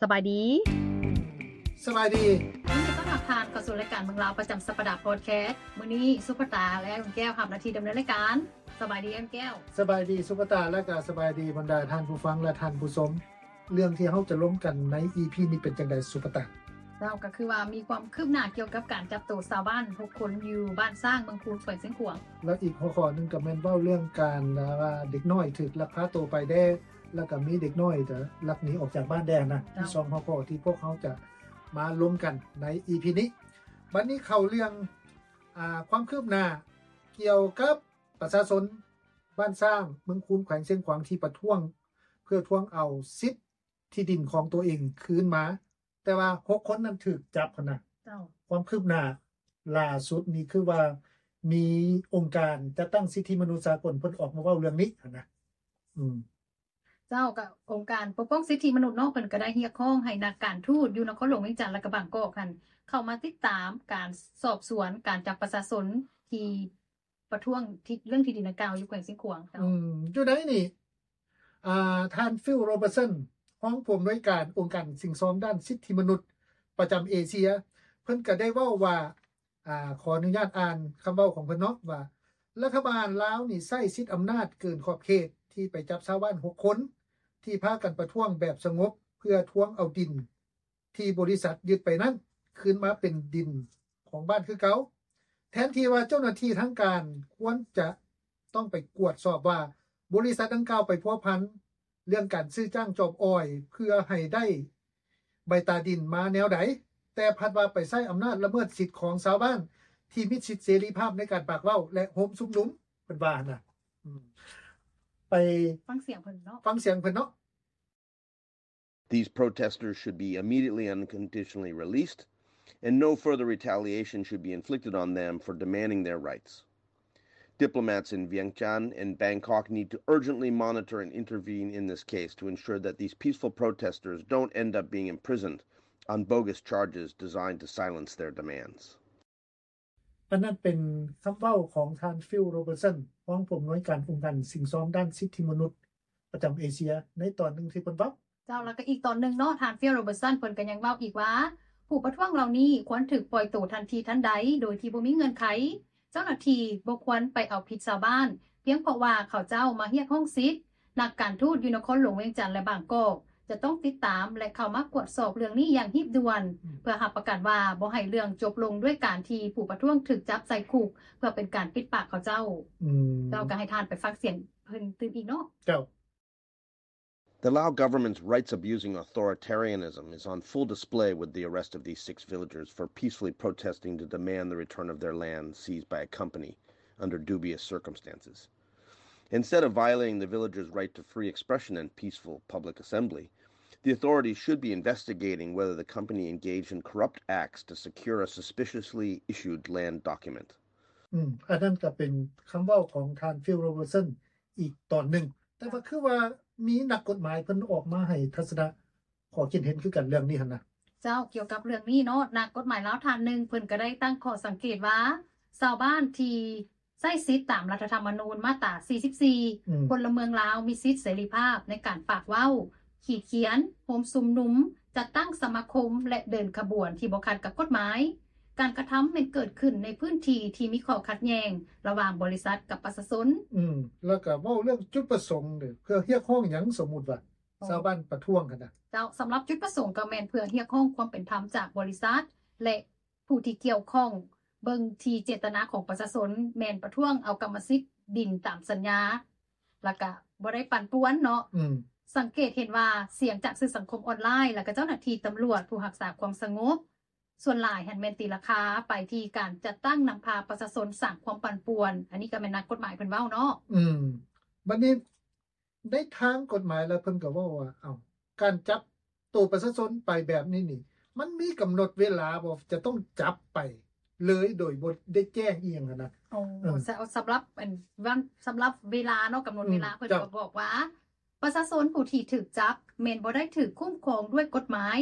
ສະບາຍດີ. ສະບາຍດີ. ຍິນດີຕ້ອນຮັບທ່ານເຂົ້າສູ່ລາຍການເມືອງລາວປະຈຳສັບປະດາພອດແຄສ. ມື້ນີ້ສຸພະຕາ ແລະ ລຸງແກ້ວຮັບໜ້າທີ່ດຳເນີນລາຍການ. ສະບາຍດີ ອ້າຍແກ້ວ. ສະບາຍດີສຸພະຕາ ແລະ ກໍສະບາຍດີບັນດາທ່ານຜູ້ຟັງ ແລະ ທ່ານຜູ້ຊົມ. ເລື່ອງທີ່ເຮົາຈະລົມກັນໃນອີພີນີ້ເປັນຈັ່ງໃດສຸພະຕາ? ເຈົ້າ ກໍຄືວ່າມີຄວາມຄືບໜ້າກ່ຽວກັບການຈັບໂຕຊາວບ້ານຫົກຄົນຢູ່ບ້ານຊ້າງ ເມືອງຄູນ ແຂວງຊຽງຂວາງ. ແລ້ວອີກຫົວຂໍ້ໜຶ່ງກໍແມ່ນເວົ້າເລື່ອງການ ອ່າ ວ່າເດັກນ້ອຍຖືກລັກພາໂຕໄປແດ່ ແລ້ວກໍມີເດັກນ້ອຍກໍລັກໜີອອກຈາກບ້ານແດ່ນະ. ເຈົ້າ ມີສອງຫົວຂໍ້ທີ່ພວກເຮົາຈະມາລົມກັນໃນອີພີນີ້. ບັດນີ້ເຂົ້າເລື່ອງ ອ່າ ຄວາມຄືບໜ້າກ່ຽວກັບປະຊາຊົນບ້ານຊ້າງ ເມືອງຄູນ ແຂວງຊຽງຂວາງ ທີ່ປະທ້ວງ ເພື່ອທວງເອົາສິດທີ່ດິນຂອງຕົວເອງຄືນມາ ແຕ່ວ່າຫົກຄົນນັ້ນຖືກຈັບຫັ້ນນະ. ເຈົ້າ ຄວາມຄືບໜ້າລ່າສຸດນີ້ຄືວ່າມີອົງການຈັດຕັ້ງສິດທິມະນຸດສາກົນເພິ່ນອອກມາເວົ້າເລື່ອງນີ້ຫັ້ນນະ. ອືມ ເຈົ້າ ກໍອົງການປົກປ້ອງສິດທິມະນຸດເນາະ ເພິ່ນກໍໄດ້ຮຽກຮ້ອງໃຫ້ນັກການທູດຢູ່ນະຄອນຫຼວງວຽງຈັນ ແລະ ກໍບາງກອກຫັ້ນ ເຂົ້າມາຕິດຕາມການສອບສວນການຈັບປະຊາຊົນທີ່ ປະທ້ວງທີ່ ເລື່ອງທີ່ດິນດັ່ງກ່າວຢູ່ແຂວງຊຽງຂວາງ. ເຈົ້າ ອືມ ຢູ່ໃນນີ້ ອ່າ ທ່ານ Phil Robertson ຮອງຜູ້ອຳນວຍການອົງການສິ້ງຊອມດ້ານສິດທິມະນຸດປະຈຳເອເຊຍ ເພິ່ນກໍໄດ້ເວົ້າວ່າ ອ່າ ຂໍອະນຸຍາດອ່ານຄຳເວົ້າຂອງເພິ່ນເນາະ ວ່າ ລັດຖະບານລາວນີ້ໃຊ້ສິດອຳນາດເກີນຂອບເຂດ ທີ່ໄປຈັບຊາວບ້ານຫົກຄົນ ທີ່ພາກັນປະທ້ວງແບບສະຫງົບ ເພື່ອທວງເອົາດິນ ທີ່ບໍລິສັດຍຶດໄປນັ້ນ ຄືນມາເປັນດິນຂອງບ້ານຄືເກົ່າ, ແທນທີ່ວ່າເຈົ້າໜ້າທີ່ທາງການຄວນຈະຕ້ອງໄປກວດສອບວ່າ ບໍລິສັດດັ່ງກ່າວໄປພົວພັນເລື່ອງການຊື້ຈ້າງຈອມອອຍ ເພື່ອໃຫ້ໄດ້ໃບຕາດິນມາແນວໃດ, ແຕ່ພັດວ່າໄປໃຊ້ອຳນາດລະເມີດສິດຂອງຊາວບ້ານທີ່ມີສິດເສລີພາບໃນການປາກເວົ້າ ແລະ ໂຮມຊຸມນຸມ, ເພິ່ນວ່າຫັ້ນນະ. ອືມ ໄປຟັງສຽງເພິ່ນເນາະ, ຟັງສຽງເພິ່ນເນາະ. These protesters should be immediately and unconditionally released, and no further retaliation should be inflicted on them for demanding their rights. Diplomats in Vientiane and Bangkok need to urgently monitor and intervene in this case to ensure that these peaceful protesters don't end up being imprisoned on bogus charges designed to silence their demands. ອັນນັ້ນເປັນຄຳເວົ້າຂອງທ່ານ Phil Robertson ຮອງຜູ້ອຳນວຍການອົງການສິ້ງຊອມດ້ານສິດທິມະນຸດປະຈຳເອເຊຍ ໃນຕອນໜຶ່ງທີ່ເພິ່ນເວົ້າ. ເຈົ້າ, ແລ້ວກໍອີກຕອນໜຶ່ງເນາະ, ທ່ານ Phil Robertson ເພິ່ນກໍຍັງເວົ້າອີກວ່າ ຜູ້ປະທ້ວງເຫຼົ່ານີ້ຄວນຖືກປ່ອຍໂຕທັນທີທັນໃດ ໂດຍທີ່ບໍ່ມີເງື່ອນໄຂ. ເຈົ້າໜ້າທີ່ບໍ່ຄວນໄປເອົາຜິດຊາວບ້ານ ພຽງເພາະວ່າເຂົາເຈົ້າມາຮຽກຮ້ອງສິດ. ນັກການທູດຢູ່ນະຄອນຫຼວງວຽງຈັນ ແລະ ບາງກອກ ຈະຕ້ອງຕິດຕາມ ແລະ ເຂົ້າມາກວດສອບເລື່ອງນີ້ຢ່າງຮີບດ່ວນ ເພື່ອຮັບປະກັນວ່າບໍ່ໃຫ້ເລື່ອງຈົບລົງດ້ວຍການທີ່ຜູ້ປະທ້ວງຖືກຈັບໃສ່ຄຸກ ເພື່ອເປັນການປິດປາກເຂົາເຈົ້າ. ເຈົ້າ, ກໍໃຫ້ທ່ານໄປຟັງສຽງເພິ່ນຕື່ມອີກເນາະ. ເຈົ້າ. The Lao government's rights-abusing authoritarianism is on full display with the arrest of these six villagers for peacefully protesting to demand the return of their land seized by a company under dubious circumstances. Instead of violating the villagers' right to free expression and peaceful public assembly, the authorities should be investigating whether the company engaged in corrupt acts to secure a suspiciously issued land document. ອືມ ອັນນັ້ນກໍເປັນຄຳເວົ້າຂອງທ່ານ Phil Robertson ອີກຕອນໜຶ່ງ. ແຕ່ວ່າຄືວ່າມີນັກກົດໝາຍເພິ່ນອອກມາໃຫ້ທັດສະນະ ຂໍ້ຄິດເຫັນຄືກັນເລື່ອງນີ້ຫັ້ນນະ. ເຈົ້າ, ກ່ຽວກັບເລື່ອງນີ້ເນາະ, ນັກກົດໝາຍລາວທ່ານໜຶ່ງ ເພິ່ນກໍໄດ້ຕັ້ງຂໍ້ສັງເກດວ່າ ຊາວບ້ານທີ່ໃຊ້ສິດຕາມລັດຖະທຳມະນູນມາດຕາສີ່ສິບສີ່ ອືມ ພົນລະເມືອງລາວມີສິດເສລີພາບໃນການປາກເວົ້າ, ຂີດຂຽນ, ໂຮມຊຸມນຸມ, ຈັດຕັ້ງສະມາຄົມ ແລະ ເດີນຂະບວນທີ່ບໍ່ຂັດກັບກົດໝາຍ. ການກະທຳແມ່ນເກີດຂຶ້ນໃນພື້ນທີ່ທີ່ມີຂໍ້ຂັດແຍ່ງລະຫວ່າງບໍລິສັດກັບປະຊາຊົນ. ອືມ ແລ້ວກໍເວົ້າເລື່ອງຈຸດປະສົງເດ້ ເພື່ອຮຽກຮ້ອງຫຍັງ ສົມມຸດວ່າ ໂອ້ ຊາວບ້ານປະທ້ວງຫັ້ນນະ. ເຈົ້າ, ສຳລັບຈຸດປະສົງກໍແມ່ນເພື່ອຮຽກຮ້ອງຄວາມເປັນທຳຈາກບໍລິສັດ ແລະ ຜູ້ທີ່ກ່ຽວຂ້ອງ, ເບິ່ງທີ່ເຈດຕະນາຂອງປະຊາຊົນ ແມ່ນປະທ້ວງເອົາກຳມະສິດດິນຕາມສັນຍາ ແລ້ວກະບໍ່ໄດ້ປັ່ນປ່ວນເນາະ. ອືມ ສັງເກດເຫັນວ່າສຽງຈາກສື່ສັງຄົມອອນລາຍ ແລ້ວກະເຈົ້າໜ້າທີ່ຕຳຫຼວດ ຜູ້ຮັກສາຄວາມສະຫງົບ ສ່ວນຫຼາຍຫັ້ນແມ່ນຕີລາຄາໄປທີ່ການຈັດຕັ້ງນຳພາປະຊາຊົນສ້າງຄວາມປັ່ນປ່ວນ. ອັນນີ້ກໍແມ່ນນັກກົດໝາຍເພິ່ນເວົ້າເນາະ. ອືມ ບັດນີ້ໃນທາງກົດໝາຍແລ້ວເພິ່ນກໍເວົ້າວ່າ ເອົ້າ ການຈັບໂຕປະຊາຊົນໄປແບບນີ້ນີ້ ມັນມີກຳນົດເວລາບໍ່ ຈະຕ້ອງຈັບໄປເລີຍໂດຍບໍ່ໄດ້ແຈ້ງອີ່ຫຍັງຫັ້ນນະ? ໂອ້ ເອີ ສະ ສຳລັບອັນ ສຳລັບເວລາເນາະ ກຳນົດເວລາ ອືມ ເພິ່ນ ເຈົ້າ ກໍບອກວ່າ ປະຊາຊົນຜູ້ທີ່ຖືກຈັບແມ່ນບໍ່ໄດ້ຖືກຄຸ້ມຄອງດ້ວຍກົດໝາຍ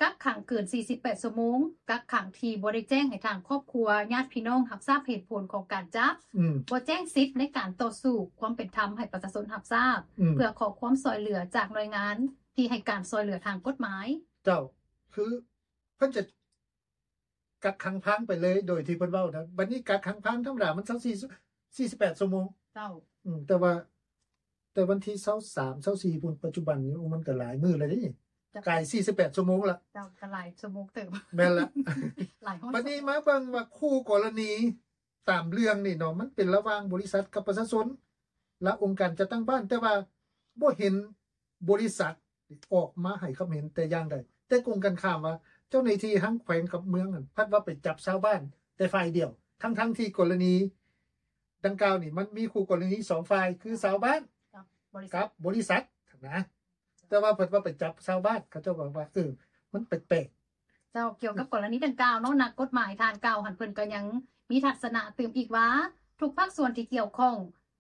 ກັກຂັງເກີນສີ່ສິບແປດຊົ່ວໂມງ, ກັກຂັງທີ່ບໍ່ໄດ້ແຈ້ງໃຫ້ທາງຄອບຄົວ, ຍາດພີ່ນ້ອງຮັບຊາບເຫດຜົນຂອງການຈັບ, ອືມ ບໍ່ແຈ້ງສິດໃນການຕໍ່ສູ້ຄວາມເປັນທຳໃຫ້ປະຊາຊົນຮັບຊາບ, ອືມ ເພື່ອຂໍຄວາມຊ່ອຍເຫຼືອຈາກໜ່ວຍງານ ທີ່ໃຫ້ການຊ່ອຍເຫຼືອທາງກົດໝາຍ. ເຈົ້າ ຄືເພິ່ນຈະກັກຂັງພາງໄປເລີຍ ໂດຍທີ່ເພິ່ນເວົ້ານະ ບັດນີ້ກັກຂັງພາງທຳມະດາມັນຊາວສີ່ ສີ່ສິບແປດຊົ່ວໂມງ. ເຈົ້າ ອືມ ແຕ່ວ່າ ແຕ່ວັນທີຊາວສາມ ຊາວສີ່ພຸ້ນ ປັດຈຸບັນນີ້ ໂອ້ ມັນກໍຫຼາຍມື້ແລ້ວເດ້ ເຈົ້າ ກາຍສີ່ສິບແປດຊົ່ວໂມງລະ. ເຈົ້າ ກໍຫຼາຍຊົ່ວໂມງເຕີບ. ແມ່ນລະ ຫຼາຍຮ້ອຍ ບັດນີ້ມາເບິ່ງວ່າຄູ່ກໍລະນີຕາມເລື່ອງນີ້ເນາະ ມັນເປັນລະຫວ່າງບໍລິສັດກັບປະຊາຊົນ ແລະ ອົງການຈັດຕັ້ງບ້ານ ແຕ່ວ່າບໍ່ເຫັນບໍລິສັດອອກມາໃຫ້ຄຳເຫັນແຕ່ຢ່າງໃດ. ແຕ່ກົງກັນຂ້າມວ່າ ເຈົ້າໜ້າທີ່ທັງແຂວງກັບເມືອງນັ້ນ ພັດວ່າໄປຈັບຊາວບ້ານແຕ່ຝ່າຍດຽວ ທັງໆທີ່ກໍລະນີ ດັ່ງກ່າວນີ້ ມັນມີຄູ່ກໍລະນີສອງຝ່າຍ ຄືຊາວບ້ານກັບບໍລິສັດ ກັບບໍລິສັດນະ ແຕ່ວ່າເພິ່ນວ່າໄປຈັບຊາວບ້ານ ເຂົາເຈົ້າກໍວ່າ ເອີ ມັນແປກໆ. ເຈົ້າ ກ່ຽວກັບກໍລະນີດັ່ງກ່າວເນາະ ນັກກົດໝາຍທ່ານກ່າວຫັ້ນ ເພິ່ນກໍຍັງມີທັດສະນະຕື່ມອີກວ່າ ທຸກພາກສ່ວນທີ່ກ່ຽວຂ້ອງ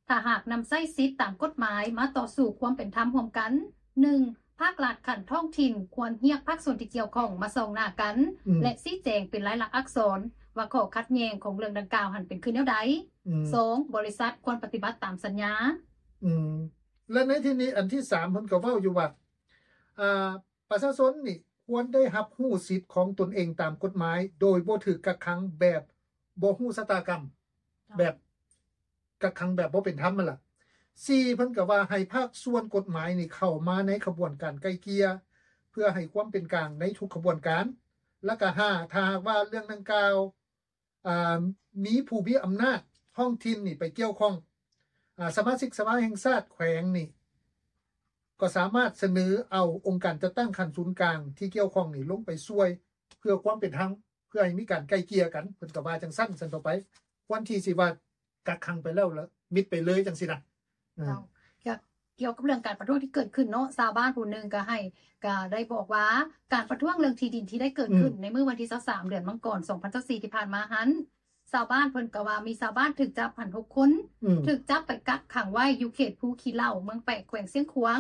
ຖ້າຫາກນຳໃຊ້ສິດຕາມກົດໝາຍມາຕໍ່ສູ້ຄວາມເປັນທຳຮ່ວມກັນ, ໜຶ່ງ ພາກລັດຂັ້ນທ້ອງຖິ່ນຄວນຮຽກພາກສ່ວນທີ່ກ່ຽວຂ້ອງມາສ່ອງໜ້າກັນ ອືມ ແລະ ຊີ້ແຈງເປັນລາຍລັກອັກສອນວ່າຂໍ້ຂັດແຍ່ງຂອງເລື່ອງດັ່ງກ່າວຫັ້ນເປັນຄືແນວໃດ. ອືມ ສອງ ບໍລິສັດຄວນປະຕິບັດຕາມສັນຍາ. ອືມ ແລະ ໃນທີ່ນີ້ ອັນທີສາມ ເພິ່ນກໍເວົ້າຢູ່ວ່າ ອ່າ ປະຊາຊົນນີ້ຄວນໄດ້ຮັບຮູ້ສິດຂອງຕົນເອງຕາມກົດໝາຍ ໂດຍບໍ່ຖືກກັກຂັງແບບບໍ່ຮູ້ຊະຕາກຳ ເຈົ້າ ແບບ ກັກຂັງແບບບໍ່ເປັນທຳຫັ້ນລະ. ສີ່ ເພິ່ນກໍວ່າໃຫ້ພາກສ່ວນກົດໝາຍນີ້ເຂົ້າມາໃນຂະບວນການໄກ່ເກ່ຍ ເພື່ອໃຫ້ຄວາມເປັນກາງໃນທຸກຂະບວນການ. ແລ້ວກໍ ຫ້າ ຖ້າຫາກວ່າເລື່ອງດັ່ງກ່າວ ອ່າ ມີຜູ້ມີອຳນາດທ້ອງຖິ່ນນີ້ໄປກ່ຽວຂ້ອງ ອ່າ ສະມາຊິກສະພາແຫ່ງຊາດແຂວງນີ້ ກໍສາມາດສະເໜີເອົາອົງການຈັດຕັ້ງຂັ້ນສູນກາງທີ່ກ່ຽວຂ້ອງນີ້ລົງໄປຊ່ວຍ ເພື່ອຄວາມເປັນທຳ ເພື່ອໃຫ້ມີການໄກ່ເກ່ຍກັນ ເພິ່ນກໍວ່າຈັ່ງຊັ້ນ ຊັ້ນຕໍ່ໄປ ຄວນທີ່ຊິວ່າກັກຂັງໄປແລ້ວ ແລ້ວມິດໄປເລີຍຈັ່ງຊີ້ນະ. ເອີ ເຈົ້າ ກ່ຽວ ກ່ຽວກັບເລື່ອງການປະທ້ວງທີ່ເກີດຂຶ້ນເນາະ ຊາວບ້ານຜູ້ໜຶ່ງກໍໃຫ້ ກໍໄດ້ບອກວ່າ ການປະທ້ວງເລື່ອງທີ່ດິນທີ່ໄດ້ເກີດຂຶ້ນ ອືມ ໃນມື້ວັນທີຊາວສາມ ເດືອນມັງກອນ ສອງພັນຊາວສີ່ ທີ່ຜ່ານມາຫັ້ນ ຊາວບ້ານເພິ່ນກໍວ່າມີຊາວບ້ານຖືກຈັບຫັ້ນຫົກຄົນ ອືມ ຖືກຈັບໄປກັກຂັງໄວ້ຢູ່ເຂດພູຂີ້ເຫຼົ້າ ເມືອງແປກ ແຂວງຊຽງຂວາງ.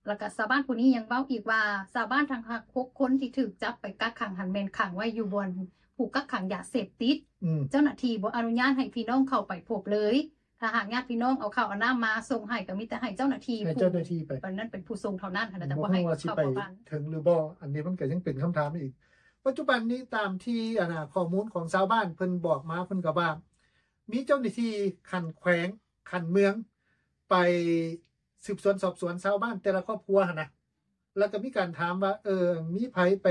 ແລ້ວກໍຊາວບ້ານຜູ້ນີ້ຍັງເວົ້າອີກວ່າ ຊາວບ້ານທັງຫົກຄົນທີ່ຖືກຈັບໄປກັກຂັງຫັ້ນ ແມ່ນຂັງໄວ້ຢູ່ບ່ອນຜູ້ກັກຂັງຢາເສບຕິດ. ອືມ ເຈົ້າໜ້າທີ່ບໍ່ອະນຸຍາດໃຫ້ພີ່ນ້ອງເຂົ້າໄປພົບເລີຍ. ຖ້າຫາກຍາດພີ່ນ້ອງເອົາເຂົ້າເອົານ້ຳມາສົ່ງໃຫ້ ກໍມີແຕ່ໃຫ້ເຈົ້າໜ້າທີ່ ໃຫ້ເຈົ້າໜ້າທີ່ໄປ ຜູ້ນັ້ນເປັນຜູ້ສົ່ງເທົ່ານັ້ນຫັ້ນນະ ແຕ່ບໍ່ໃຫ້ເຂົ້າເຂົ້າບ້ານເຖິງຫຼືບໍ່. ອັນນີ້ມັນກໍຍັງເປັນຄຳຖາມອີກ. ປັດຈຸບັນນີ້ຕາມທີ່ ອັນນ່າ ຂໍ້ມູນຂອງຊາວບ້ານເພິ່ນບອກມາ ເພິ່ນກໍວ່າ ມີເຈົ້າໜ້າທີ່ຂັ້ນແຂວງ ຂັ້ນເມືອງ ໄປສືບສວນສອບສວນຊາວບ້ານແຕ່ລະຄອບຄົວຫັ້ນນະ ແລ້ວກໍມີການຖາມວ່າ ເອີ ມີໃຜໄປ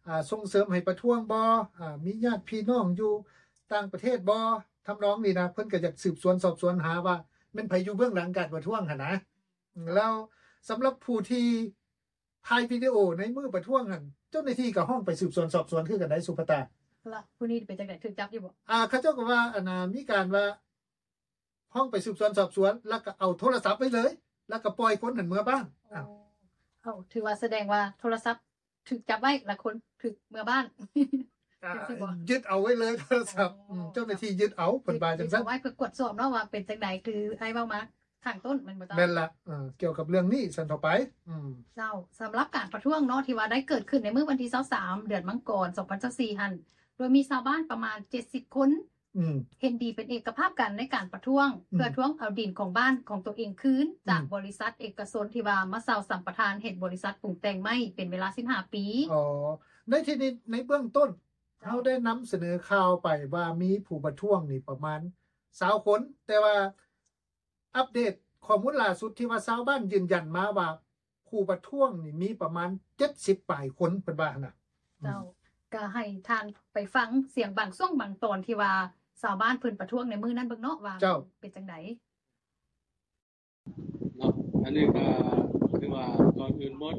ອ່າ ສົ່ງເສີມໃຫ້ປະທ້ວງບໍ່? ອ່າ ມີຍາດພີ່ນ້ອງຢູ່ຕ່າງປະເທດບໍ່? ທຳນອງນີ້ນະ ເພິ່ນກໍຢາກສືບສວນສອບສວນຫາວ່າແມ່ນໃຜຢູ່ເບື້ອງຫຼັງການປະທ້ວງຫັ້ນນະ. ແລ້ວສຳລັບຜູ້ທີ່ຖ່າຍວິດີໂອໃນມື້ປະທ້ວງຫັ້ນ ເຈົ້າໜ້າທີ່ກໍຮ້ອງໄປສືບສວນສອບສວນຄືກັນໄດ໋ ສຸພະຕາ. ລະຜູ້ນີ້ເປັນຈັ່ງໃດ ຖືກຈັບຢູ່ບໍ່? ອ່າ ເຂົາເຈົ້າກໍວ່າ ອັນນ່າ ມີການວ່າ ຮ້ອງໄປສືບສວນສອບສວນ ແລ້ວກໍເອົາໂທລະສັບໄວ້ເລີຍ ແລ້ວກໍປ່ອຍຄົນຫັ້ນເມືອບ້ານ. ໂອ້ ເອົາ ຖືວ່າສະແດງວ່າໂທລະສັບຖືກຈັບໄວ້ ແລ້ວຄົນຖືກເມືອບ້ານ. ອ່າ ຈັ່ງຊີ້ບໍ່? ຍຶດເອົາໄວ້ເລີຍໂທລະສັບ. ອໍ ອືມ ເຈົ້າໜ້າທີ່ຍຶດເອົາ ເພິ່ນວ່າຈັ່ງຊັ້ນ. ເກັບເອົາໄວ້ເພື່ອກວດສອບເນາະ ວ່າເປັນຈັ່ງໃດ ຄືອ້າຍເວົ້າມາຂ້າງຕົ້ນ ແມ່ນບໍ່ເຈົ້າ? ແມ່ນລະ. ເອີ ກ່ຽວກັບເລື່ອງນີ້ຊັ້ນຕໍ່ໄປ. ອືມ ເຈົ້າ ສຳລັບການປະທ້ວງເນາະ ທີ່ວ່າໄດ້ເກີດຂຶ້ນໃນມື້ວັນທີຊາວສາມ ເດືອນມັງກອນ ສອງພັນຊາວສີ່ ຫັ້ນ ໂດຍມີຊາວບ້ານປະມານເຈັດສິບຄົນ ອືມ ເຫັນດີເປັນເອກະພາບກັນໃນການປະທ້ວງ ອືມ ເພື່ອທວງເອົາດິນຂອງບ້ານຂອງຕົວເອງຄືນ ອືມ ຈາກບໍລິສັດເອກະຊົນທີ່ວ່າມາເຊົ່າສຳປະທານເຮັດບໍລິສັດປຸງແຕ່ງໄມ້ເປັນເວລາສິບຫ້າປີ. ອໍ ໃນທີ່ນີ້ ໃນເບື້ອງຕົ້ນ ເຈົ້າ ເຮົາໄດ້ນຳສະເໜີຂ່າວໄປວ່າມີຜູ້ປະທ້ວງນີ້ປະມານຊາວຄົນ ແຕ່ວ່າ ອັບເດດຂໍ້ມູນລ່າສຸດທີ່ວ່າຊາວບ້ານຢືນຢັນມາວ່າ ຜູ້ປະທ້ວງນີ້ມີປະມານເຈັດສິບປາຍຄົນ ເພິ່ນວ່າຫັ້ນນະ. ເຈົ້າ ອືມ ກໍໃຫ້ທ່ານໄປຟັງສຽງບາງຊ່ວງບາງຕອນທີ່ວ່າຊາວບ້ານເພິ່ນປະທ້ວງໃນມື້ນັ້ນເບິ່ງເນາະ ວ່າ ເຈົ້າ ເປັນຈັ່ງໃດ. ເນາະ ອັນນີ້ກໍຄືວ່າ ກ່ອນອື່ນໝົດ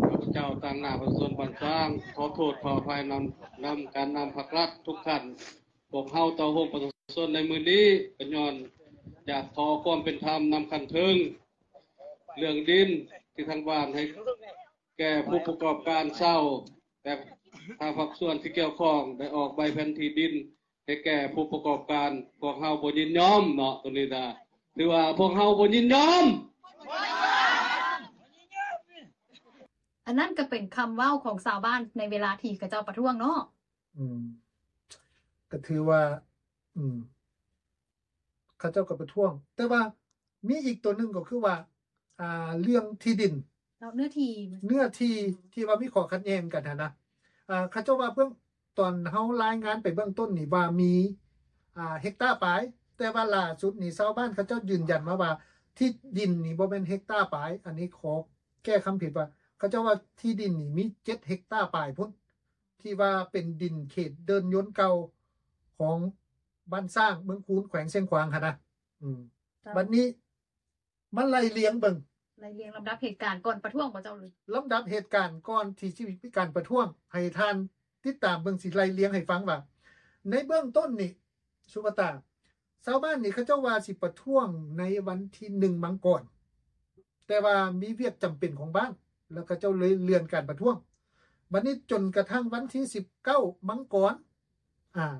ຂ້າພະເຈົ້າຕາງໜ້າປະຊາຊົນບ້ານຊ້າງ ຂໍໂທດຂໍອະໄພນຳ ນຳການນຳພັກລັດທຸກຂັ້ນ. ພວກເຮົາຕໍ່ໂຮມປະຊາຊົນໃນມື້ນີ້ ກໍຍ້ອນຢາກຂໍຄວາມເປັນທຳນຳຂັ້ນເທິງ ເລື່ອງດິນທີ່ທາງບ້ານໃຫ້ແກ່ຜູ້ປະກອບການເຊົ່າ ແຕ່ທາງພາກສ່ວນທີ່ກ່ຽວຂ້ອງໄດ້ອອກໃບແຜນທີ່ດິນໃຫ້ແກ່ຜູ້ປະກອບການ ພວກເຮົາບໍ່ຍິນຍອມເນາະ. ໂຕນີ້ນະ ຖືວ່າພວກເຮົາບໍ່ຍິນຍອມ. ອັນນັ້ນກໍເປັນຄຳເວົ້າຂອງຊາວບ້ານໃນເວລາທີ່ເຂົາເຈົ້າປະທ້ວງເນາະ. ອືມ ກໍຖືວ່າ ອືມ ເຂົາເຈົ້າກໍປະທ້ວງ ແຕ່ວ່າມີອີກຕົວໜຶ່ງກໍຄືວ່າ ອ່າ ເລື່ອງທີ່ດິນ ເຈົ້າ ເນື້ອທີ່ ເນື້ອທີ່ທີ່ວ່າມີຂໍ້ຂັດແຍ່ງກັນຫັ້ນນະ ອ່າ ເຂົາເຈົ້າວ່າເບື້ອງ ຕອນເຮົາລາຍງານໄປເບື້ອງຕົ້ນນີ້ວ່າມີ ອ່າ ເຮັກຕາປາຍ ແຕ່ວ່າລ່າສຸດນີ້ຊາວບ້ານເຂົາເຈົ້າຢືນຢັນມາວ່າ ທີ່ດິນນີ້ບໍ່ແມ່ນເຮັກຕາປາຍ ອັນນີ້ຂໍແກ້ຄຳຜິດວ່າ ເຂົາເຈົ້າວ່າທີ່ດິນນີ້ມີເຈັດເຮັກຕາປາຍພຸ້ນ ທີ່ວ່າເປັນດິນເຂດເດີ່ນຍົນເກົ່າຂອງບ້ານຊ້າງ ເມືອງຄູນ ແຂວງຊຽງຂວາງຫັ້ນນະ ອືມ ເຈົ້າ ບັດນີ້ ມາໄລ່ລຽງເບິ່ງ ໄລ່ລຽງລຳດັບເຫດການກ່ອນປະທ້ວງບໍ່ເຈົ້າ? ລຳດັບເຫດການກ່ອນທີ່ຊິມີການປະທ້ວງ ໃຫ້ທ່ານຕິດຕາມເບິ່ງ ຊິໄລ່ລຽງໃຫ້ຟັງວ່າ ໃນເບື້ອງຕົ້ນນີ້ ສຸວັດຕາ ຊາວບ້ານນີ້ເຂົາເຈົ້າວ່າຊິປະທ້ວງໃນວັນທີໜຶ່ງມັງກອນ ແຕ່ວ່າມີວຽກຈຳເປັນຂອງບ້ານ ແລ້ວເຂົາເຈົ້າເລີຍເລື່ອນການປະທ້ວງ ບັດນີ້ຈົນກະທັ່ງວັນທີສິບເກົ້າມັງກອນ ອ່າ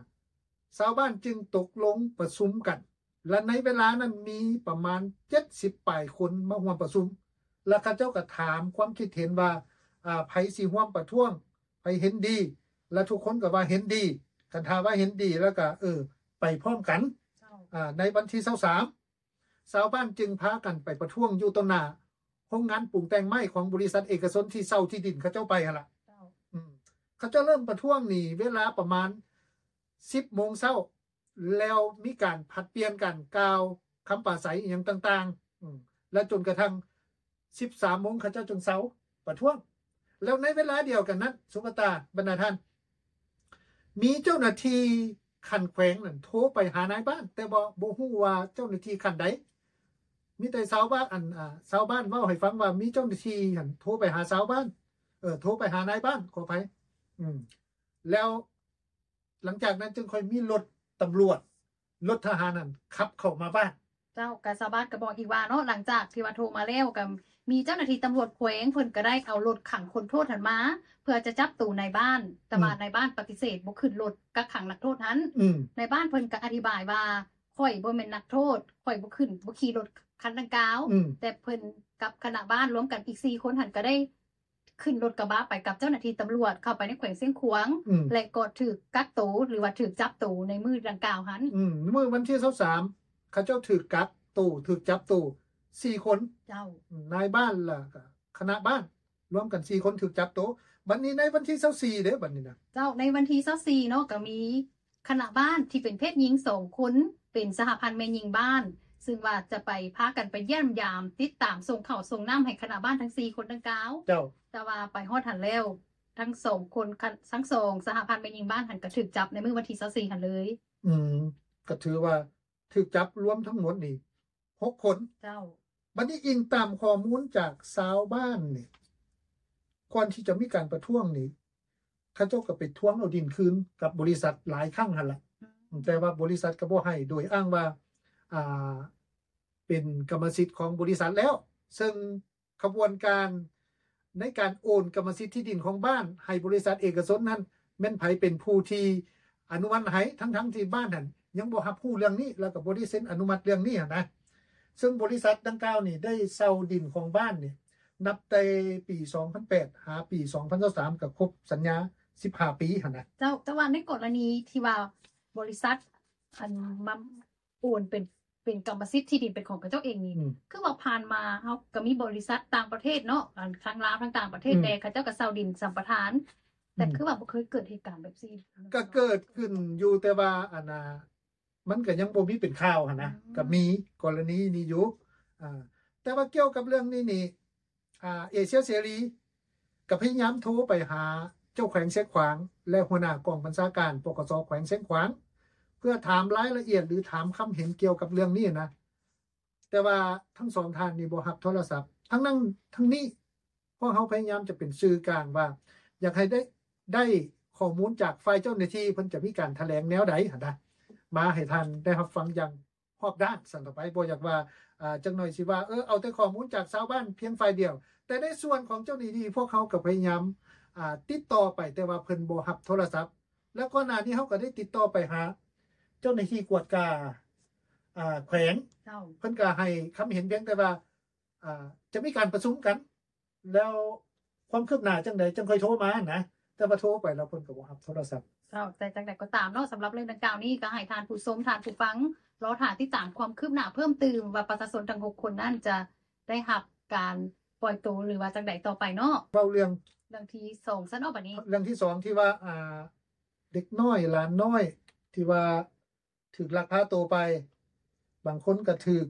ຊາວບ້ານຈຶ່ງຕົກລົງປະຊຸມກັນ ແລະ ໃນເວລານັ້ນມີປະມານເຈັດສິບປາຍຄົນມາຮ່ວມປະຊຸມ ແລະ ເຂົາເຈົ້າກໍຖາມຄວາມຄິດເຫັນວ່າ ອ່າ ໃຜຊິຮ່ວມປະທ້ວງ ໃຜເຫັນດີ ແລະ ທຸກຄົນກໍວ່າເຫັນດີ ຄັນຖ້າວ່າເຫັນດີແລ້ວກໍ ເອີ ໄປພ້ອມກັນ ເຈົ້າ ອ່າ ໃນວັນທີຊາວສາມ ຊາວບ້ານຈຶ່ງພາກັນໄປປະທ້ວງຢູ່ຕໍ່ໜ້າໂຮງງານປຸງແຕ່ງໄມ້ຂອງບໍລິສັດເອກະຊົນທີ່ເຊົ່າທີ່ດິນເຂົາເຈົ້າໄປຫັ້ນລະ ເຈົ້າ ອືມ ເຂົາເຈົ້າເລີ່ມປະທ້ວງນີ້ເວລາປະມານສິບໂມງເຊົ້າ ແລ້ວມີການຜັດປ່ຽນກັນກ່າວຄຳປາໄສອີ່ຫຍັງຕ່າງໆ ອືມ ແລະ ຈົນກະທັ່ງສິບສາມໂມງເຂົາເຈົ້າຈຶ່ງເຊົາປະທ້ວງ ແລ້ວໃນເວລາດຽວກັນນັ້ນ ສຸວັດຕາ ບັນດາທ່ານ ມີເຈົ້າໜ້າທີ່ຂັ້ນແຂວງນັ້ນໂທໄປຫານາຍບ້ານ ແຕ່ບໍ່ ບໍ່ຮູ້ວ່າເຈົ້າໜ້າທີ່ຂັ້ນໃດ ມີແຕ່ຊາວບ້ານ ອັນ ອ່າ ຊາວບ້ານເວົ້າໃຫ້ຟັງວ່າມີເຈົ້າໜ້າທີ່ຫັ້ນໂທໄປຫາຊາວບ້ານ ເອີ ໂທໄປຫານາຍບ້ານ ຂໍອະໄພ ອືມ ແລ້ວ ຫຼັງຈາກນັ້ນຈຶ່ງຄ່ອຍມີລົດຕຳຫຼວດ ລົດທະຫານນັ້ນຂັບເຂົ້າມາບ້ານ. ເຈົ້າ ກະຊາວບ້ານກະບອກອີກວ່າເນາະ ຫຼັງຈາກທີ່ວ່າໂທມາແລ້ວ ກະມີເຈົ້າໜ້າທີ່ຕຳຫຼວດແຂວງ ເພິ່ນກະໄດ້ເອົາລົດຂັງຄົນໂທດຫັ້ນມາ ເພື່ອຈະຈັບໂຕນາຍບ້ານ ແຕ່ວ່າ ອືມ ນາຍບ້ານປະຕິເສດບໍ່ຂຶ້ນລົດກັກຂັງນັກໂທດຫັ້ນ. ອືມ ນາຍບ້ານເພິ່ນກະອະທິບາຍວ່າ ຂ້ອຍບໍ່ແມ່ນນັກໂທດ ຂ້ອຍບໍ່ຂຶ້ນ ບໍ່ຂີ່ລົດຄັນດັ່ງກ່າວ. ອືມ ແຕ່ເພິ່ນກັບຄະນະບ້ານລວມກັນອີກສີ່ຄົນຫັ້ນ ກະໄດ້ ຂຶ້ນລົດກະບະໄປກັບເຈົ້າໜ້າທີ່ຕຳຫຼວດເຂົ້າໄປໃນແຂວງຊຽງຂວາງ ອືມ ແລະ ກໍຖືກກັກໂຕ ຫຼືວ່າຖືກຈັບໂຕໃນມື້ດັ່ງກ່າວຫັ້ນ. ອືມ ມື້ວັນທີຊາວສາມ ເຂົາເຈົ້າຖືກກັກໂຕ ຖືກຈັບໂຕສີ່ຄົນ. ເຈົ້າ ອືມ ນາຍບ້ານ ແລ້ວກະຄະນະບ້ານ ລວມກັນສີ່ຄົນຖືກຈັບໂຕ. ບັດນີ້ໃນວັນທີຊາວສີ່ເດ້ ບັດນີ້ນະ. ເຈົ້າ ໃນວັນທີຊາວສີ່ເນາະ ກະມີ ຄະນະບ້ານທີ່ເປັນເພດຍິງສອງຄົນ ເປັນສະຫະພັນແມ່ຍິງບ້ານ ຊຶ່ງວ່າຈະໄປ ພາກັນໄປຢ້ຽມຢາມ ຕິດຕາມ ສົ່ງເຂົ້າສົ່ງນ້ຳໃຫ້ຄະນະບ້ານທັງສີ່ຄົນດັ່ງກ່າວ. ເຈົ້າ ແຕ່ວ່າໄປຮອດຫັ້ນແລ້ວ ທັງສອງຄົນ ທັງສອງສະຫະພັນແມ່ຍິງບ້ານຫັ້ນ ກະຖືກຈັບໃນມື້ວັນທີຊາວສີ່ຫັ້ນເລີຍ. ອືມ ກະຖືວ່າຖືກຈັບລວມທັງໝົດນີ້ ຫົກຄົນ. ເຈົ້າ ບັດນີ້ອີງຕາມຂໍ້ມູນຈາກຊາວບ້ານນີ້ ກ່ອນທີ່ຈະມີການປະທ້ວງນີ້ ເຂົາເຈົ້າກໍໄປທວງເອົາດິນຄືນກັບບໍລິສັດຫຼາຍຄັ້ງຫັ້ນລະ ອືມ ແຕ່ວ່າບໍລິສັດກໍບໍ່ໃຫ້ ໂດຍອ້າງວ່າ ອ່າ ເປັນກຳມະສິດຂອງບໍລິສັດແລ້ວ ເຊິ່ງ ຂະບວນການໃນການໂອນກຳມະສິດທີ່ດິນຂອງບ້ານໃຫ້ບໍລິສັດເອກະຊົນນັ້ນ ແມ່ນໃຜເປັນຜູ້ທີ່ອະນຸມັດໃຫ້ ທັງໆທີ່ບ້ານຫັ້ນຍັງບໍ່ຮັບຮູ້ເລື່ອງນີ້ ແລ້ວກໍບໍ່ໄດ້ເຊັນອະນຸມັດເລື່ອງນີ້ຫັ້ນນະ. ເຊິ່ງບໍລິສັດດັ່ງກ່າວນີ້ໄດ້ເຊົ່າດິນຂອງບ້ານນີ້ ນັບແຕ່ປີສອງພັນແປດຫາປີສອງພັນຊາວສາມ ກໍຄົບສັນຍາສິບຫ້າປີຫັ້ນນະ. ເຈົ້າ ແຕ່ວ່າໃນກໍລະນີທີ່ວ່າບໍລິສັດ ອັນ ມາ ໂອນເປັນ ເປັນກຳມະສິດທີ່ດິນເປັນຂອງເຂົາເຈົ້າເອງນີ້ ອືມ ຄືວ່າຜ່ານມາເຮົາກໍມີບໍລິສັດຕ່າງປະເທດເນາະ ອັນ ທັງລາວທັງຕ່າງປະເທດ ອືມ ແດ່ ເຂົາເຈົ້າກໍເຊົ່າດິນສຳປະທານ ແຕ່ ອືມ ຄືວ່າບໍ່ເຄີຍເກີດເຫດການແບບຊີ້. ກໍເກີດຂຶ້ນຢູ່ ແຕ່ວ່າ ອັນນ່າ ມັນກໍຍັງບໍ່ມີເປັນຂ່າວຫັ້ນນະ ອືມ ກໍມີກໍລະນີນີ້ຢູ່ ອ່າ ແຕ່ວ່າກ່ຽວກັບເລື່ອງນີ້ນີ້ ອ່າ ເອເຊຍເສລີກໍພະຍາຍາມໂທໄປຫາເຈົ້າແຂວງຊຽງຂວາງ ແລະ ຫົວໜ້າກອງບັນຊາການ ປກສ ແຂວງຊຽງຂວາງ ເພື່ອຖາມລາຍລະອຽດ ຫຼື ຖາມຄຳເຫັນກ່ຽວກັບເລື່ອງນີ້ນະ ແຕ່ວ່າທັງສອງທ່ານນີ້ບໍ່ຮັບໂທລະສັບ. ທັງນັ້ນທັງນີ້ ພວກເຮົາພະຍາຍາມຈະເປັນສື່ກາງວ່າ ຢາກໃຫ້ໄດ້ ໄດ້ຂໍ້ມູນຈາກຝ່າຍເຈົ້າໜ້າທີ່ ເພິ່ນຈະມີການຖະແຫຼງແນວໃດຫັ້ນນະ ມາໃຫ້ທ່ານໄດ້ຮັບຟັງຢ່າງ ຮອບດ້ານຊັ້ນຕໍ່ໄປ ບໍ່ຢາກວ່າ ອ່າ ຈັກໜ້ອຍຊິວ່າ ເອີ ເອົາແຕ່ຂໍ້ມູນຈາກຊາວບ້ານພຽງຝ່າຍດຽວ ແຕ່ໃນສ່ວນຂອງເຈົ້າໜ້າທີ່ ພວກເຮົາກໍພະຍາຍາມ ອ່າ ຕິດຕໍ່ໄປ ແຕ່ວ່າເພິ່ນບໍ່ຮັບໂທລະສັບ ແລ້ວກ່ອນໜ້ານີ້ເຮົາກໍໄດ້ຕິດຕໍ່ໄປຫາເຈົ້າໜ້າທີ່ກວດກາ ອ່າ ແຂວງ ເຈົ້າ ເພິ່ນກໍໃຫ້ຄຳເຫັນພຽງແຕ່ວ່າ ອ່າ ຈະມີການປະຊຸມກັນ ແລ້ວຄວາມຄືບໜ້າຈັ່ງໃດຈັ່ງຄ່ອຍໂທມານະ ແຕ່ວ່າໂທໄປແລ້ວເພິ່ນກໍບໍ່ຮັບໂທລະສັບ. ເຈົ້າ ແຕ່ຈັ່ງໃດກໍຕາມເນາະ ສຳລັບເລື່ອງດັ່ງກ່າວນີ້ ກໍໃຫ້ທ່ານຜູ້ຊົມ ທ່ານຜູ້ຟັງ ລໍຖ້າຕິດຕາມຄວາມຄືບໜ້າເພີ່ມຕື່ມວ່າປະຊາຊົນທັງຫົກຄົນນັ້ນຈະໄດ້ຮັບການ ປ່ອຍໂຕ ຫຼືວ່າຈັ່ງໃດຕໍ່ໄປເນາະ. ເວົ້າເລື່ອງ ເລື່ອງທີສອງຊັ້ນເນາະ ບັດນີ້ ເລື່ອງທີສອງທີ່ວ່າ ອ່າ ເດັກນ້ອຍ ຫຼານນ້ອຍ ທີ່ວ່າຖືກລັກພາໂຕໄປ ບາງຄົນກໍຖືກ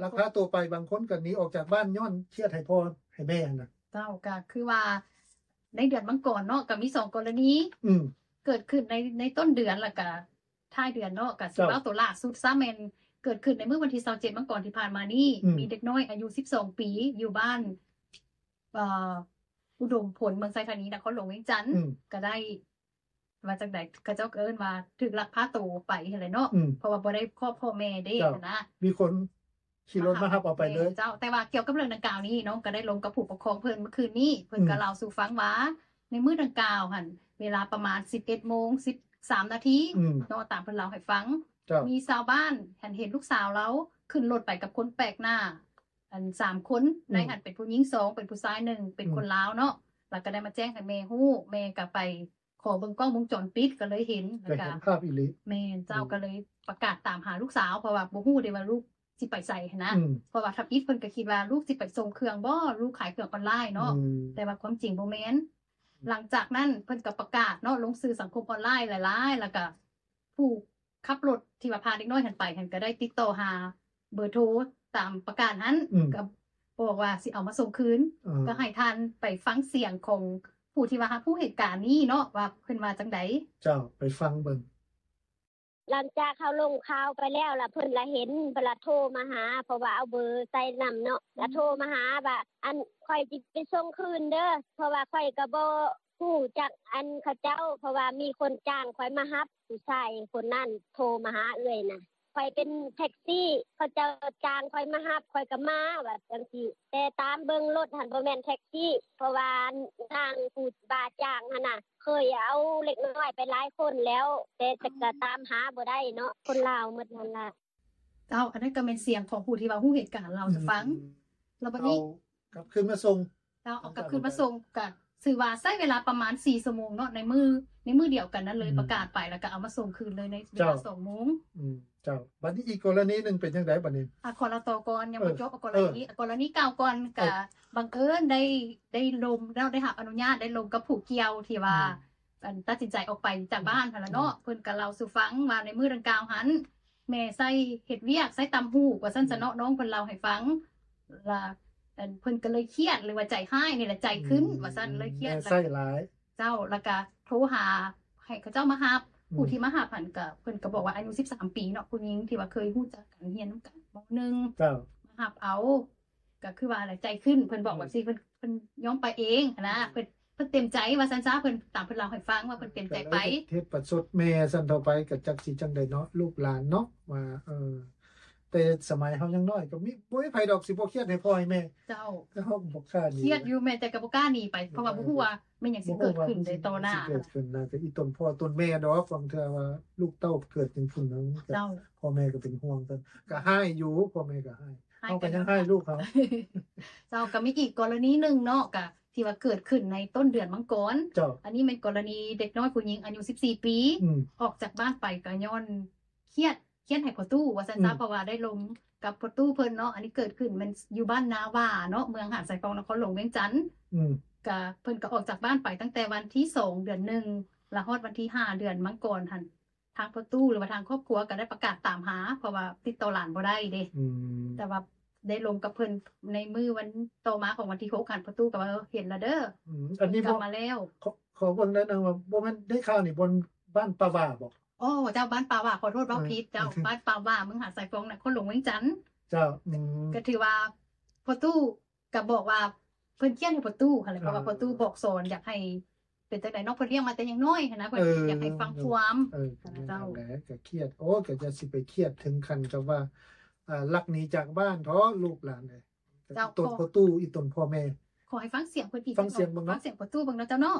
ລັກພາໂຕໄປ ບາງຄົນກໍໜີອອກຈາກບ້ານຍ້ອນຄຽດໃຫ້ພໍ່ໃຫ້ແມ່ຫັ້ນນະ. ເຈົ້າ ກໍຄືວ່າໃນເດືອນມັງກອນເນາະ ກໍມີສອງກໍລະນີ ອືມ ເກີດຂຶ້ນໃນ ໃນຕົ້ນເດືອນ ແລ້ວກໍທ້າຍເດືອນເນາະ. ກໍຊິ ເຈົ້າ ເວົ້າໂຕລ່າສຸດຊະ ແມ່ນເກີດຂຶ້ນໃນມື້ວັນທີຊາວເຈັດມັງກອນທີ່ຜ່ານມານີ້ ອືມ ມີເດັກນ້ອຍອາຍຸສິບສອງປີ ຢູ່ບ້ານ ເອີ ອຸດົມຜົນ ເມືອງໄຊທານີ ນະຄອນຫຼວງວຽງຈັນ ອືມ ກໍໄດ້ ວ່າຈັ່ງໃດ ເຂົາເຈົ້າກໍເອີ້ນວ່າຖືກລັກພາໂຕໄປຫັ້ນແຫຼະເນາະ ອືມ ເພາະວ່າບໍ່ໄດ້ພໍ້ພໍ່ແມ່ເດ້ ເຈົ້າ ຫັ້ນນະ ມີຄົນຂີ່ລົດມາຮັບເອົາໄປເລີຍ. ແມ່ນເຈົ້າ ແຕ່ວ່າກ່ຽວກັບເລື່ອງດັ່ງກ່າວນີ້ ນ້ອງກໍໄດ້ລົມກັບຜູ້ປົກຄອງເພິ່ນເມື່ອຄືນນີ້ ເພິ່ນ ອືມ ກໍເລົ່າສູ່ຟັງວ່າ ໃນມື້ດັ່ງກ່າວຫັ້ນ ເວລາປະມານສິບເອັດໂມງສິບສາມນາທີ ອືມ ເນາະ ຕາມເພິ່ນເລົ່າໃຫ້ຟັງ ເຈົ້າ ມີຊາວບ້ານຫັ້ນເຫັນລູກສາວລາວຂຶ້ນລົດໄປກັບຄົນແປກໜ້າ ອັນ ສາມຄົນ ອືມ ໃນຫັ້ນເປັນຜູ້ຍິງສອງ ເປັນຜູ້ຊາຍໜຶ່ງ ເປັນ ອືມ ຄົນລາວເນາະ ແລ້ວກໍໄດ້ມາແຈ້ງໃຫ້ແມ່ຮູ້ ແມ່ກໍໄປ ຂໍເບິ່ງກ້ອງວົງຈອນປິດກໍເລີຍເຫັນ ກໍເຫັນພາບອີ່ຫຼີ. ແມ່ນເຈົ້າ ອືມ ກໍເລີຍປະກາດຕາມຫາລູກສາວ ເພາະວ່າບໍ່ຮູ້ເດ້ວ່າລູກຊິໄປໃສຫັ້ນນະ ອືມ ເພາະວ່າທຳອິດເພິ່ນກໍຄິດວ່າລູກຊິໄປສົ່ງເຄື່ອງບໍ ລູກຂາຍເຄື່ອງອອນລາຍເນາະ ອືມ ແຕ່ວ່າຄວາມຈິງບໍ່ແມ່ນ. ອືມ ຫຼັງຈາກນັ້ນເພິ່ນກໍປະກາດເນາະ ລົງສື່ສັງຄົມອອນລາຍຫຼາຍໆ ແລ້ວກໍຜູ້ ຂັບລົດທີ່ວ່າພາເດັກນ້ອຍຫັ້ນໄປຫັ້ນ ກໍໄດ້ຕິດຕໍ່ຫາເບີໂທຕາມປະກາດຫັ້ນ ອືມ ກໍບອກວ່າຊິເອົາມາສົ່ງຄືນ ເອີ ກໍໃຫ້ທ່ານໄປຟັງສຽງຂອງຜູ້ທີ່ວ່າຮັບຮູ້ເຫດການນີ້ເນາະ ວ່າເພິ່ນວ່າຈັ່ງໃດ. ເຈົ້າ ໄປຟັງເບິ່ງ. ຫຼັງຈາກເຮົາລົງຂ່າວໄປແລ້ວ ລະເພິ່ນລະເຫັນ ເພິ່ນລະໂທມາຫາ ເພາະວ່າເອົາເບີໃສ່ນຳເນາະ ລະໂທມາຫາວ່າ ອັນ ຂ້ອຍຊິໄປສົ່ງຄືນເດີ ເພາະວ່າຂ້ອຍກໍບໍ່ ຮູ້ຈັກອັນເຂົາເຈົ້າ ເພາະວ່າມີຄົນຈ້າງຂ້ອຍມາຮັບ ຜູ້ຊາຍຄົນນັ້ນໂທມາຫາເອື້ອຍນະ ຂ້ອຍເປັນແທັກຊີ ເຂົາເຈົ້າຈ້າງຂ້ອຍມາຮັບ ຂ້ອຍກໍມາ ວ່າຈັ່ງຊີ້ ແຕ່ຕາມເບິ່ງລົດຫັ້ນບໍ່ແມ່ນແທັກຊີ ເພາະວ່ານາງຜູ້ວ່າຈ້າງຫັ້ນນະ ເຄີຍເອົາເດັກນ້ອຍໄປຫຼາຍຄົນແລ້ວ ແຕ່ ອືມ ກໍຕາມຫາບໍ່ໄດ້ເນາະ ຄົນລາວໝົດຫັ້ນລະ. ເຈົ້າ ອັນນັ້ນກໍແມ່ນສຽງຂອງຜູ້ທີ່ວ່າຮູ້ເຫດການເລົ່າສູ່ຟັງ ອືມ ແລ້ວບັດນີ້ ເອົາກັບຄືນມາສົ່ງ ເຈົ້າ ເອົາກັບຄືນມາສົ່ງ ກໍຖືວ່າໃຊ້ເວລາປະມານສີ່ຊົ່ວໂມງເນາະ ໃນມື້ ໃນມື້ດຽວກັນນັ້ນເລີຍ ອືມ ປະກາດໄປ ແລ້ວກໍເອົາມາສົ່ງຄືນເລີຍໃນເວລາ ເຈົ້າ ສອງໂມງ. ອືມ ເຈົ້າ ບັດນີ້ອີກກໍລະນີໜຶ່ງເປັນຈັ່ງໃດບັດນີ້? ອາ ຂໍເລົ່າຕໍ່ກ່ອນ ຍັງບໍ່ ເອີ ຈົບ ເອົາກໍລະນີ ເອີ ເອົາກໍລະນີເກົ່າກ່ອນ ເອີ ກໍບັງເອີນໄດ້ ໄດ້ລົມເນາະ ໄດ້ຮັບອະນຸຍາດ ໄດ້ລົມກັບຜູ້ກ່ຽວທີ່ວ່າ ອືມ ອັນ ຕັດສິນໃຈອອກໄປຈາກ ອືມ ບ້ານຫັ້ນລະເນາະ ອືມ ເພິ່ນກໍເລົ່າສູ່ຟັງວ່າໃນມື້ດັ່ງກ່າວຫັ້ນ ແມ່ໃຊ້ເຮັດວຽກ ໃຊ້ຕ່ຳຫູກວ່າຊັ້ນຊະເນາະ ອືມ ນ້ອງເພິ່ນເລົ່າໃຫ້ຟັງ ລະ ອັນ ເພິ່ນກໍເລີຍຄຽດ ຫຼືວ່າໃຈຮ້າຍນີ້ແຫຼະ ໃຈຂຶ້ນ ອືມ ວ່າຊັ້ນ ເລີຍຄຽດ ແມ່ໃຊ້ຫຼາຍ ເຈົ້າ ລະກະໂທຫາໃຫ້ເຂົາເຈົ້າມາຮັບ ອືມ ຜູ້ທີ່ມາຮັບຫັ້ນກະ ເພິ່ນກໍບອກວ່າອາຍຸສິບສາມປີເນາະ ຜູ້ຍິງທີ່ວ່າເຄີຍຮູ້ຈັກກັນ ຮຽນນຳກັນ ມໍໜຶ່ງ ເຈົ້າ ມາຮັບເອົາ ກໍຄືວ່າແຫຼະ ໃຈຂຶ້ນ ເພິ່ນບອກ ອືມ ແບບຊີ້ ເພິ່ນ ເພິ່ນຍອມໄປເອງຫັ້ນນະ ອືມ ເພິ່ນ ເພິ່ນເຕັມໃຈວ່າຊັ້ນຊະ ເພິ່ນ ຕາມເພິ່ນເລົ່າໃຫ້ຟັງວ່າເພິ່ນເຕັມໃຈໄປ ກໍເລີຍເຮັດປະຊົດແມ່ຊັ້ນເທົ່າໄປ ກໍຈັກຊິຈັ່ງໃດເນາະ ລູກຫຼານເນາະ ວ່າ ເອີ ແຕ່ສະໄໝເຮົາຍັງນ້ອຍ ກໍມີ ບໍ່ມີໃຜດອກຊິບໍ່ຄຽດໃຫ້ພໍ່ໃຫ້ແມ່ ເຈົ້າ ແຕ່ເຮົາກໍບໍ່ກ້າໜີ ຄຽດຢູ່ແມ່ ແຕ່ກໍບໍ່ກ້າໜີໄປ ເພາະວ່າບໍ່ຮູ້ວ່າແມ່ນຫຍັງຊິເກີດຂຶ້ນໃນຕໍ່ໜ້າ ເອີ ບໍ່ຮູ້ວ່າມັນຊິເກີດຂຶ້ນນະ ກໍອີ່ຕົນພໍ່ຕົນແມ່ດອກ ບາງເທື່ອວ່າລູກເຕົ້າເກີດເປັນຜູ້ໜຶ່ງ ເຈົ້າ ພໍ່ແມ່ກໍເປັນຫ່ວງກັນ ກໍຮ້າຍຢູ່ ພໍ່ແມ່ກໍຮ້າຍ ເຮົາກໍຍັງຮ້າຍລູກເຮົາ ເຈົ້າ ກໍມີອີກກໍລະນີໜຶ່ງເນາະ ກະທີ່ວ່າເກີດຂຶ້ນໃນຕົ້ນເດືອນມັງກອນ ເຈົ້າ ອັນນີ້ແມ່ນກໍລະນີເດັກນ້ອຍຜູ້ຍິງອາຍຸສິບສີ່ປີ ອືມ ອອກຈາກບ້ານໄປກໍຍ້ອນຄຽດ ຄຽດໃຫ້ພໍ່ຕູ້ວ່າຊັ້ນຊະ ອືມ ເພາະວ່າໄດ້ລົມກັບພໍ່ຕູ້ເພິ່ນເນາະ ອັນນີ້ເກີດຂຶ້ນແມ່ນຢູ່ບ້ານນາຫວ້າເນາະ ເມືອງຫາດຊາຍຟອງ ນະຄອນຫຼວງວຽງຈັນ ອືມ ກະເພິ່ນກໍອອກຈາກບ້ານໄປຕັ້ງແຕ່ວັນທີສອງເດືອນໜຶ່ງ ລະຮອດວັນທີຫ້າເດືອນມັງກອນຫັ້ນ ທາງພໍ່ຕູ້ ຫຼືວ່າທາງຄອບຄົວກໍໄດ້ປະກາດຕາມຫາ ເພາະວ່າຕິດຕໍ່ຫຼານບໍ່ໄດ້ເດ້ ອືມ ແຕ່ວ່າໄດ້ລົມກັບເພິ່ນໃນມື້ວັນຕໍ່ມາຂອງວັນທີຫົກຫັ້ນ ພໍ່ຕູ້ກໍວ່າ ເອີ ເຫັນລະເດີ ອືມ ອັນນີ້ ກັບມາແລ້ວ ຂໍ ຂໍເບິ່ງໜ້ອຍໜຶ່ງວ່າ ບໍ່ແມ່ນໄດ້ຂ່າວນີ້ ບ່ອນ ບ້ານປ່າຫວ້າບໍ? ອໍ ເຈົ້າ ບ້ານປ່າຫວ້າ ຂໍໂທດເວົ້າຜິດເຈົ້າ ເອີ ບ້ານປ່າຫວ້າ ເມືອງຫາດຊາຍຟອງ ນະຄອນຫຼວງວຽງຈັນ ເຈົ້າ ອືມ ກໍຖືວ່າພໍ່ຕູ້ ກໍບອກວ່າເພິ່ນຄຽດໃຫ້ພໍ່ຕູ້ຫັ້ນແຫຼະ ເພາະວ່າ ອ່າ ພໍ່ຕູ້ບອກສອນ ຢາກໃຫ້ເປັນຈັ່ງໃດເນາະ ເພິ່ນລ້ຽງມາແຕ່ຍັງນ້ອຍຫັ້ນນະ ເພິ່ນ ເອີ ຢາກໃຫ້ຟັງຄວາມ ເອີ ກໍແມ່ນ ເຈົ້າ ນັ້ນແຫຼະ ກໍຄຽດ ໂອ້ ກໍຢ່າຊິໄປຄຽດເຖິງຂັ້ນກັບວ່າ ອ່າ ລັກໜີຈາກບ້ານເຖາະ ລູກຫຼານເອີຍ ເຈົ້າ ອີ່ຕົນພໍ່ຕູ້ ອີ່ຕົນພໍ່ແມ່ ຂໍໃຫ້ຟັງສຽງເພິ່ນອີກ ຟັງສຽງເບິ່ງເນາະ ຟັງສຽງພໍ່ຕູ້ເບິ່ງເນາະເຈົ້າເນາະ.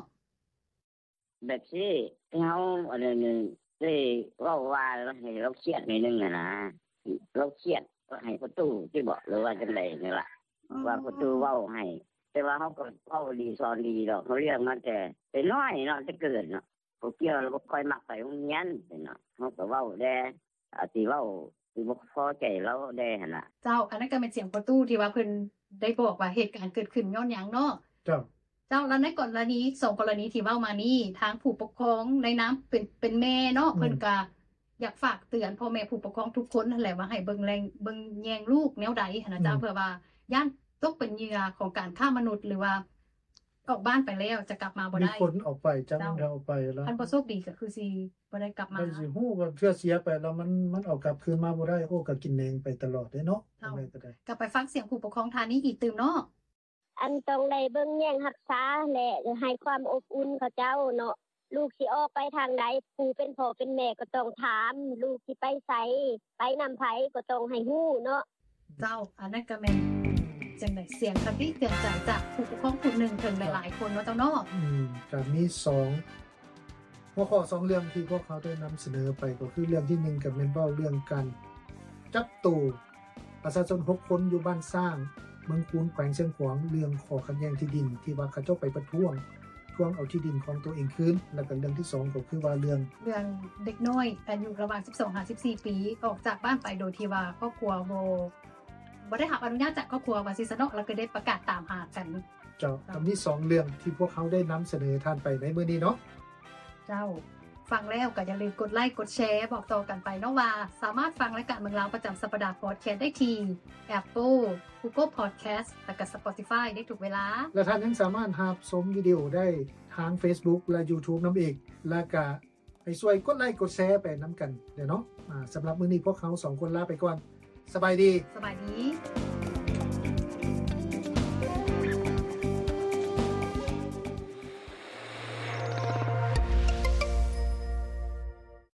ແບບຊີ້ ເຮົາ ອັນນັ້ນ ໄດ້ເວົ້າວ່າໃຫ້ລາວຄຽດໜ້ອຍໜຶ່ງຫັ້ນນະ ລາວຄຽດໃຫ້ພໍ່ຕູ້ຕິບໍ ຫຼືວ່າຈັ່ງໃດນີ້ລະ ອືມ ວ່າພໍ່ຕູ້ເວົ້າໃຫ້ ແຕ່ວ່າເຮົາກໍເວົ້າດີສອນດີດອກ ເຮົາລ້ຽງມາແຕ່ ແຕ່ນ້ອຍເນາະ ແຕ່ເກີດເນາະ ບໍ່ກ່ຽວ ລາວບໍ່ຄ່ອຍມັກໄປໂຮງຮຽນເນາະ ເຮົາກໍເວົ້າແດ່ ອາດຊິເວົ້າ ຊິບໍ່ພໍໃຈລາວແດ່ຫັ້ນລະ. ເຈົ້າ ອັນນັ້ນກໍແມ່ນສຽງພໍ່ຕູ້ທີ່ວ່າເພິ່ນ ໄດ້ບອກວ່າເຫດການເກີດຂຶ້ນຍ້ອນຫຍັງເນາະ. ເຈົ້າ ເຈົ້າ ແລ້ວໃນກໍລະນີ ສອງກໍລະນີທີ່ເວົ້າມານີ້ ທາງຜູ້ປົກຄອງໃນນາມເປັນ ເປັນແມ່ເນາະ ອືມ ເພິ່ນກະຢາກຝາກເຕືອນພໍ່ແມ່ຜູ້ປົກຄອງທຸກຄົນຫັ້ນແຫຼະ ວ່າໃຫ້ເບິ່ງແລງ ເບິ່ງແຍງລູກແນວໃດຫັ້ນນະເຈົ້າ ອືມ ເພື່ອວ່າຢ້ານຕົກເປັນເຫຍື່ອຂອງການຄ້າມະນຸດ ຫຼືວ່າອອກບ້ານໄປແລ້ວຈະກັບມາບໍ່ໄດ້. ມີຄົນອອກໄປ ຈັກມັນໄດ້ອອກໄປແລ້ວ ຄັນບໍ່ໂຊກດີກໍຄືຊິບໍ່ໄດ້ກັບມາ ໄດ້ຊິຮູ້ວ່າເທື່ອເສຍໄປແລ້ວມັນ ມັນເອົາກັບຄືນມາບໍ່ໄດ້. ໂອ້ ກໍກິນແໜງໄປຕະຫຼອດເດ້ເນາະ ເຈົ້າ ຈັ່ງໃດກໍໄດ້. ກໍໄປຟັງສຽງຜູ້ປົກຄອງທ່ານນີ້ອີກຕື່ມເນາະ. ອັນຕ້ອງໄດ້ເບິ່ງແຍງຮັກສາ ແລະ ໃຫ້ຄວາມອົບອຸ່ນເຂົາເຈົ້າເນາະ. ລູກຊິອອກໄປທາງໃດ ຜູ້ເປັນພໍ່ເປັນແມ່ກໍຕ້ອງຖາມ ລູກຊິໄປໃສ ໄປນຳໃຜກໍຕ້ອງໃຫ້ຮູ້ເນາະ. ເຈົ້າ ອັນນັ້ນກໍແມ່ນ ຈັ່ງໃດ ສຽງຄະຕິເຕືອນໃຈຈາກຜູ້ປົກຄອງຜູ້ໜຶ່ງເຖິງຫຼາຍໆຄົນເນາະເຈົ້າເນາະ. ອືມ ກໍມີສອງ ຫົວຂໍ້ສອງເລື່ອງທີ່ພວກເຮົາໄດ້ນຳສະເໜີໄປ ກໍຄືເລື່ອງທີໜຶ່ງກໍແມ່ນເວົ້າເລື່ອງການຈັບໂຕປະຊາຊົນຫົກຄົນຢູ່ບ້ານຊ້າງ ເມືອງຄູນ ແຂວງຊຽງຂວາງ ເລື່ອງຂໍ້ຂັດແຍ່ງທີ່ດິນ ທີ່ວ່າເຂົາເຈົ້າໄປປະທ້ວງ ທວງເອົາທີ່ດິນຂອງຕົວເອງຄືນ ແລ້ວກໍເລື່ອງທີສອງກໍຄືວ່າເລື່ອງ ເລື່ອງເດັກນ້ອຍອາຍຸລະຫວ່າງສິບສອງຫາສິບສີ່ປີ ອອກຈາກບ້ານໄປໂດຍທີ່ວ່າຄອບຄົວບໍ່ ບໍ່ໄດ້ຮັບອະນຸຍາດຈາກຄອບຄົວວ່າຊີ້ຊະເນາະ ແລ້ວກໍໄດ້ປະກາດຕາມຫາກັນ. ເຈົ້າ ເຈົ້າ ກໍມີສອງເລື່ອງທີ່ພວກເຮົາໄດ້ນຳສະເໜີທ່ານໄປໃນມື້ນີ້ເນາະ. ເຈົ້າ ຟັງແລ້ວກໍຢ່າລືມກົດໄລກົດແຊ ບອກຕໍ່ກັນໄປເນາະວ່າ ສາມາດຟັງລາຍການເມືອງລາວປະຈຳສັບປະດາພອດແຄສໄດ້ທີ່ Apple, Google Podcast ແລ້ວກໍ Spotify ໄດ້ທຸກເວລາ ແລະ ທ່ານຍັງສາມາດຮັບຊົມວິດີໂອໄດ້ທາງ Facebook ແລະ YouTube ນຳອີກ ແລະ ກະ ໃຫ້ຊ່ວຍກົດໄລກົດແຊໄປນຳກັນເດີເນາະ. ອາ ສຳລັບມື້ນີ້ພວກເຮົາສອງຄົນລາໄປກ່ອນ. ສະບາຍດີ. ສະບາຍດີ.